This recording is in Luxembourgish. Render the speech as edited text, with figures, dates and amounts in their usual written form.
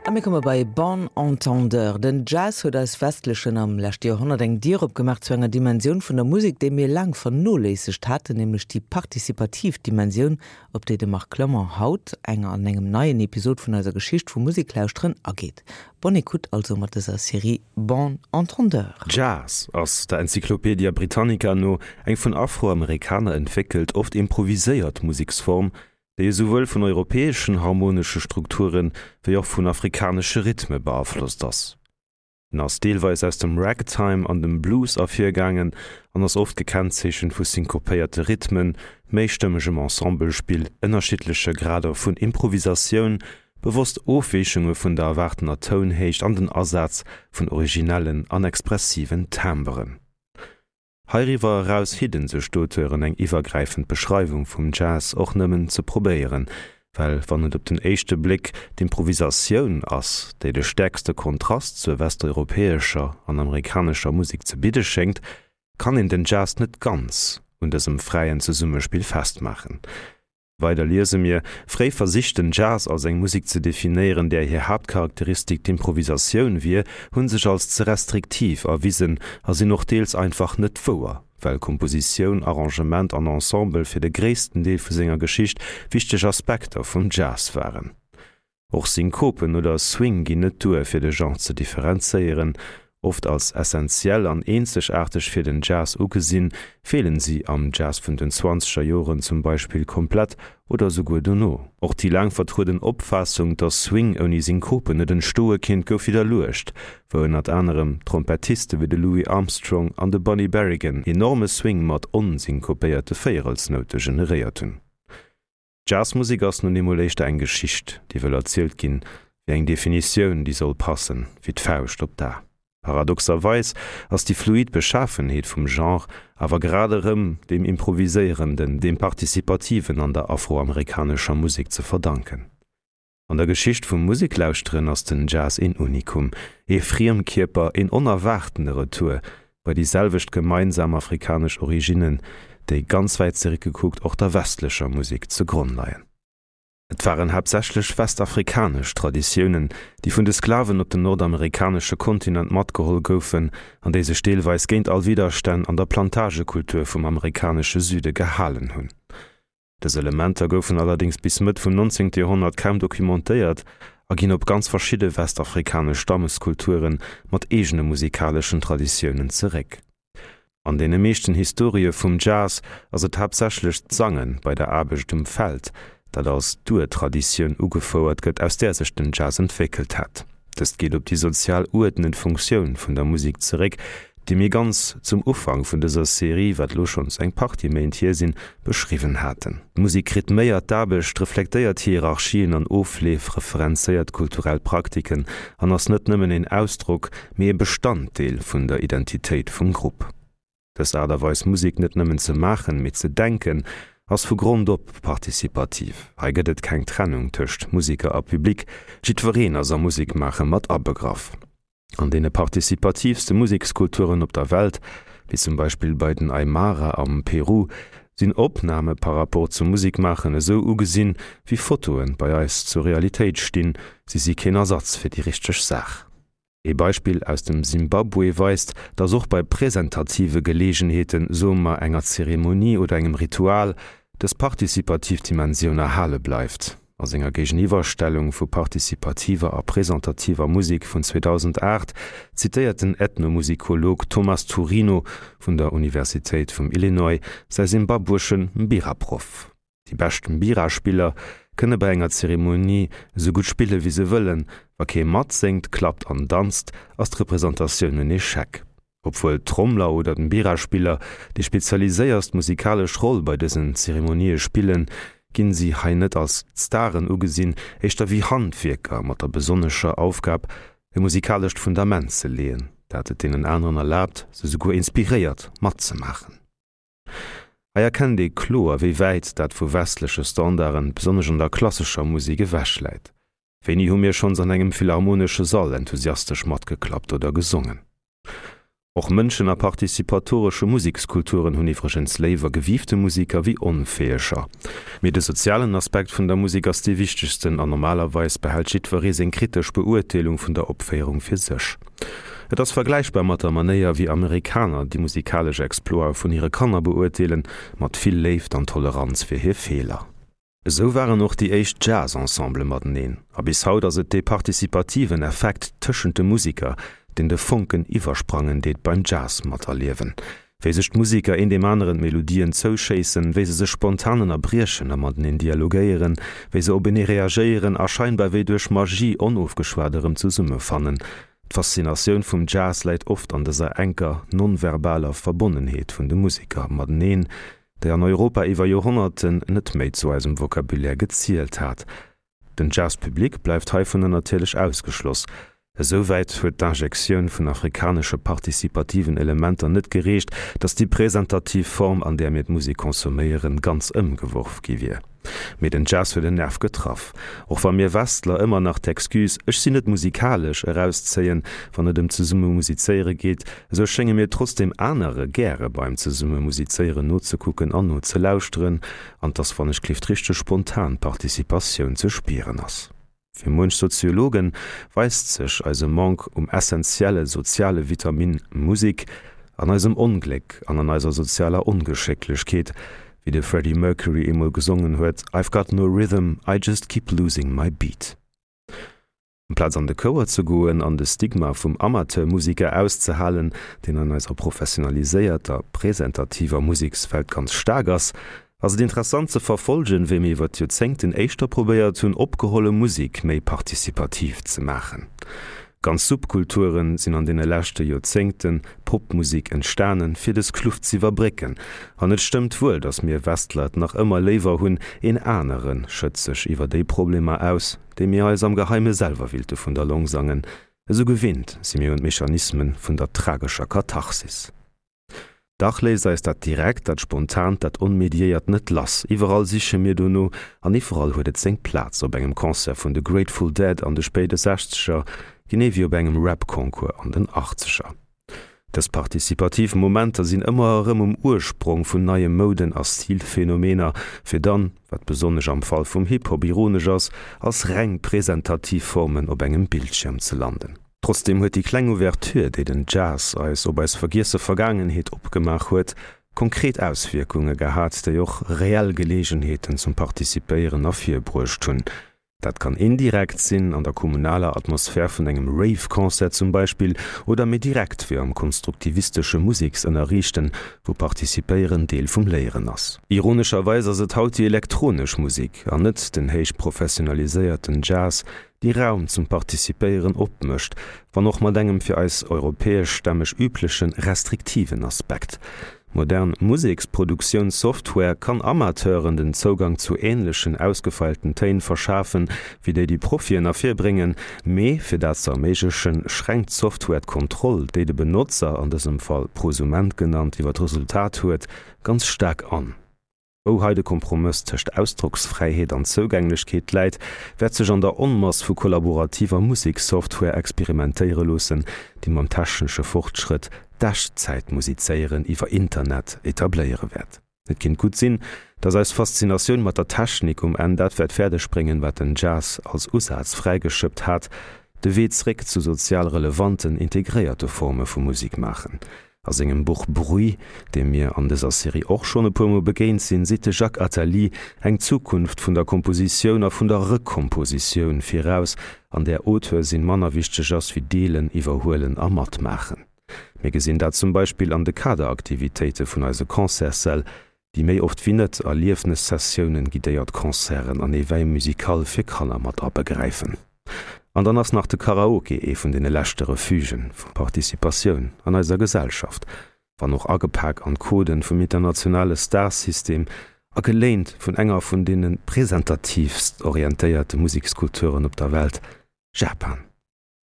A mir komme bei Bon Entendeur. Den Jazz huet eis Westlechen am leschte Joerhonnert eng Dier opgemaach zu enger Dimensioun vun der Musek, déi mir laang vernoléissegt haten, nämlech déi participativ Dimensioun, op déi de Marc Clement haut eng an engem neien Episod vun eiser Geschicht vum Museklauschteren ageet. Bonne écoute also mat dëser Serie Bon Entendeur. Jazz ass, der Encyclopedia Britannica no, eng vun Afroamerikaner entwéckelt, oft improviséiert Museksform, déi esouwuel vun europäeschen harmonesche Strukture wéi och vun afrikanesche Rhythme beaflosst ass. En ass deelweis aus dem Ragtime an dem Blues ervirgaangen an ass oft gekennzeechent vu synkopéierte Rhythmen, méistëmmegem Ensemblespill, ënnerschiddleche Grader vun Improvisatioun, bewosst Ofweechunge vun der erwaartener Tounhéicht an den Asaz vun originellen an expressiven Timberen. Heiriwwer eraus hidden sech d'Auteuren eng iwwergräifend Beschreiwung vum Jazz och nëmmen ze probéieren, well wann et op den éischte Bléck d'Improvisatioun ass, déi de stäerkste Kontrast zur westeuropäescher an amerikanescher Musek ze bidde schéngt, kann een den Jazz net ganz un dësem fräien Zesummespill festmaachen. Weider liese mir, Fréi Versich den Jazz als eng Musek ze definéieren, där hir Haaptcharakteristik d'Improvisatioun wier, hu sech als ze restriktiv erwisen a sinn och deels einfach net wouer, well Kompositioun, Arrangement an Ensemble fir de gréissten Deel vu senger Geschicht wichteg Aspekter vum Jazz waren. Och Synkopen oder Swing ginn net duer, fir de Genre ze differenzéieren. Oft als essentiell an eenzegaarteg fir den Jazz ugesinn, feelen si am Jazz vun den zwanzeger Joren zum Beispill komplett oder esouguer dono. Och déi laang vertrueden Opfaassung, dass Swing ouni Synkopen net entstoe kinnt, gouf widderluecht, wou ënnert anerem Trompettiste wéi de Louis Armstrong an de Bunny Berigan enorme Swing mat onsynkopéierte Véierelsnoute generéiert hunn. Jazzmusek ass nun eemol éischter eng Geschicht, déi wëll erzielt ginn, wéi eng Definitioun, déi soll passen wéi d'Fauscht op d'A. Paradoxerweis ass déi fluid Beschafenheet vum Genre awer grad erëm deem Improviséierenden, deem Participativen an der afroamerikanescher Musek ze verdanken. An der Geschicht vum Museklauschteren ass den Jazz een Unikum, ee Friemkierper, een onerwaartene Retour bei déi selwecht gemeinsam afrikanesch Originnen, déi, ganz wäit zeréckgekuckt, och der westlecher Musek ze Gronn leien. Et waren haaptsächlech westafrikanesch Traditiounen, déi vun de Sklaven op den nordamerikanesche Kontinent matgeholl goufen an déi sech deelweis géint all Widderstänn an der Plantagekultur vum amerikanesche Süde gehalen hunn. Dës Elementer goufen allerdéngs bis Mëtt vum 19. Joerhonnert kaum documentéiert a ginn op ganz verschidde westafrikanesch Stammeskulture mat eegene musikaleschen Traditiounen zeréck. An deene meeschten Historië vum Jazz ass et haaptsächlech d'Sange bei der Aarbecht um Feld, dat als d'Urtraditioun ugefouert gëtt, aus där sech den Jazz entwéckelt hätt. Dëst geet op déi sozial uerdnend Funktioun vun der Musek zeréck, déi mir ganz zum Ufank vun dëser Serie, wat elo schonns eng Partie Méint hier sinn, beschriwwen haten. D'Musek rhythméiert d'Aarbecht, reflektéiert Hierarchien an Ofleef, referenzéiert kulturell Praktiken an ass net nëmmen een Ausdrock, mee e Bestanddeel vun der Identitéit vum Grupp. Dës Aart a Weis Musek net nëmmen ze maachen, mee ze denken, ass vu Grond op participativ. Hei gëtt et keng Trennung tëscht Museker a Public, jiddwereen ass am Musekmaache mat abegraff. An deene participativste Musekskulturen op der Welt, wéi zum Beispill bei den Aymara am Peru, sinn Opname par rapport zum Musekmaachen esou ugesinn, wéi Fotoen bei eis zur Realitéit stinn, si si keen Ersatz fir déi richteg Saach. Ee Beispill aus dem Simbabwe weist, dass och bei präsentative Geleegenheeten, soe mer enger Zeremonie oder engem Ritual, dës participativ Dimensioun erhale bleift. A senger Géigeniwwerstellung vu participativer a presentativer Musek vun 2008 zitéiert den Ethnomusikolog Thomas Turino vun der Universitéit vum Illinois säi simbabwesche Mbira-Proff. Déi bescht Mbira-Spiller kënne bei enger Zeremonie esou gutt spille wéi se wëllen, wa kee matséngt, klappt an danzt, ass d'Representatioun en Echec. Obwuel d'Trommler oder d'Mbira-Spiller déi spezialiséierst musikalesch Roll bei dësen Zeremonië spillen, ginn si hei net als d'Staren ugesinn, éischter wéi Handwierker mat der besonnescher Aufgab, e musikalescht Fundament ze leeën, dat et deenen aneren erlaabt, se souguer inspiréiert, matzemaachen. Hei erkennt ee kloer, wéi wäit dat vu westleche Standarden, besonnesch an der klassescher Musek, ewech läit. Wéini hu mir schonns an engem philharmonesche Sall enthusiastesch matgeklappt oder gesongen? Och Mënschen a participatoresche Musekskulturen hunn iwwregens léiwer gewiifte Museker wéi onfäeger. Mee de sozialen Aspekt vun der Musek ass dee wichtegsten an normalerweis behält jiddweree seng kritesch Beurteelung vun der Opféierung fir sech. Et ass vergläichbar mat der Manéier wéi Amerikaner déi musikalesch Exploite vun hire Kanner beurteelen, mat vill Léift an Toleranz fir hir Feeler. Esou waren och déi éischt Jazz-Ensembele mateneen, a bis haut ass et dee participativen Effekt tëschent de Musiker, deen de Fonken iwwersprangen deet beim Jazz materliewen. Wéi sech d'Musiker een deem aneren d'Melodien zouschéissen, wéi se sech spontan ënnerbriechen a mateneen dialogéieren, wéi se openee reagéieren a scheinbar wéi duerch Magie onofgeschwat erëm zesummefannen. D'Faszinatioun vum Jazz läit oft an dëser enker, non-verbaler Verbonnenheet vun de Musiker mateneen, déi an Europa iwwer Joerhonnerten net méi zu eisem Vocabulaire gezielt hat. Den Jazz Public bleift heivunner natierlech ausgeschloss. Esou wäit huet d'Injektioun vun afrikanesche participativen Elementer net gereecht, datt déi presentativ Form, an där mir d'Musek consomméieren, ganz ëmgeworf gi wier. Mee den Jazz huet en Nerv getraff. Och wa mir Westler ëmmer nach d'Excuse ech sinn net musikalesch erauszéien, wann et ëm zesumme musizéiere geet, esou schénge mir trotzdeem anere gäre beim zesumme musizéieren nozekucken an nozelauschteren, an dass wann ech klift richteg spontan Participatioun ze spieren ass. Fir muench Soziologe weist sech eise Manque um essentielle soziale Vitamin Musek an eisem Ongléck an an eiser sozialer Ongeschécklechkeet, wéi de Freddie Mercury eemol gesongen huet, I've got no rhythm, I just keep losing my beat. Amplaz an de Chouer ze goen an de Stigma vum Amateurmusiker auszehalen, deen an eiser professionaliséierter, presentativer Musekswelt ganz staark ass, Ass et interessant ze verfolgen, wéi mir iwwer d'Joerzéngten éischter probéiert hunn, opgeholle Musek méi participativ ze maachen. Ganz Subkulturen sinn an deene leschte Joerzéngte Popmusek entstanen, fir dës Kluft z'iwwerbrécken. An et stëmmt wuel, datt mir Westler et nach ëmmer léiwer hunn, een anere schëtzt sech iwwer déi Problemer aus, déi mir eis am Geheime selwer willte vun der Long sangen. Esou gewinnt si mir un d'Mechanismen vun der tragescher Katharsis. Dach léisst eis dat Direkt, dat Spontant, dat Onmediéiert net lass. Iwwerall siche mir dono an iwwerall huet et seng Plaz, op engem Concert vun de Grateful Dead an de spéide Sechzeger, genee wéi op engem Rap-Concours an den Achtzeger. Dës partizipativ Momenter sinn ëmmer erëm um Ursprong vun neie Mouden a Stilphenomener, fir dann, wat besonnesch am Fall vum Hip-Hop ironesch ass, als reng presentativ Formen op engem Bildschierm ze landen. Trotzdeem huet déi kleng Ouverture, déi den Jazz eis op eis vergiesse Vergaangenheet opgemaach huet, konkret Auswierkunge gehat, déi och reell Geleegenheeten zum Participéieren ervirbruecht hunn. Dat kann indirekt sinn, an der kommunaler Atmosphär vun engem Rave-Concert zum Beispill, oder méi direkt, wéi am konstruktivistesche Museksënnerriichten, wou Participéieren Deel vum Léieren ass. Ironescherweis ass et haut déi elektronesch Musek, an net den héich professionaliséierten Jazz, déi Raum zum Participéieren opmécht, wann och mat engem fir eis europäeschstämmeg übleche restriktiven Aspekt. Modern Museksproduktiounsoftware kann Amateuren den Zougang zu änlechen ausgefeilten Téin verschafen, wéi déi déi Profien ervirbréngen, mee fir dat ze erméiglechen, schränkt d'Software d'Kontroll, déi de Benotzer, an dësem Fall Prosument genannt, iwwer d'Resultat huet, ganz staark an. Wou hei de Kompromëss tëscht Ausdrocksfräiheet an Zougänglechkeet läit, wäert sech an der Onmass vu kollaborativer Musekssoftware experimentéiere loossen, déi mam technesche Fortschrëtt d'Echtzäitmusizéieren iwwer Internet etabléiere wäert. Et kinnt gutt sinn, datt eis Faszinatioun mat der Technik um Enn dat wäert fäerdeg bréngen, wat den Jazz als Usaz fräigeschëppt hat, de Wee zréck zu sozial relevanten, integréierte Forme vu Musik maachen. A sengem Buch Bruit, deem mir an dëser Serie och schonn e puer Mol begéint sinn, seet de Jacques Attali eng Zukunft vun der Kompositioun a vun der Rekompositioun viraus, an där Auteur sinn manner wichteg ass wéi Deelen, Iwwerhuelen a Matmaachen. Mir gesinn dat zum Beispill an de Kaderaktivitéite vun eise Concertssäll, déi méi oft wéi net Erliefnessessiounen, guidéiert Concerten an Éveil musical fir Kanner mat abegräifen. An dann ass nach de Karaoke ee vun deene leschte Refugen vu Participatioun an eiser Gesellschaft, wann och agepak an d'Coden vum internationale Starsystem a geléint vun enger vun deene presentatiivst orientéierte Musekskulturen op der Welt, Japan.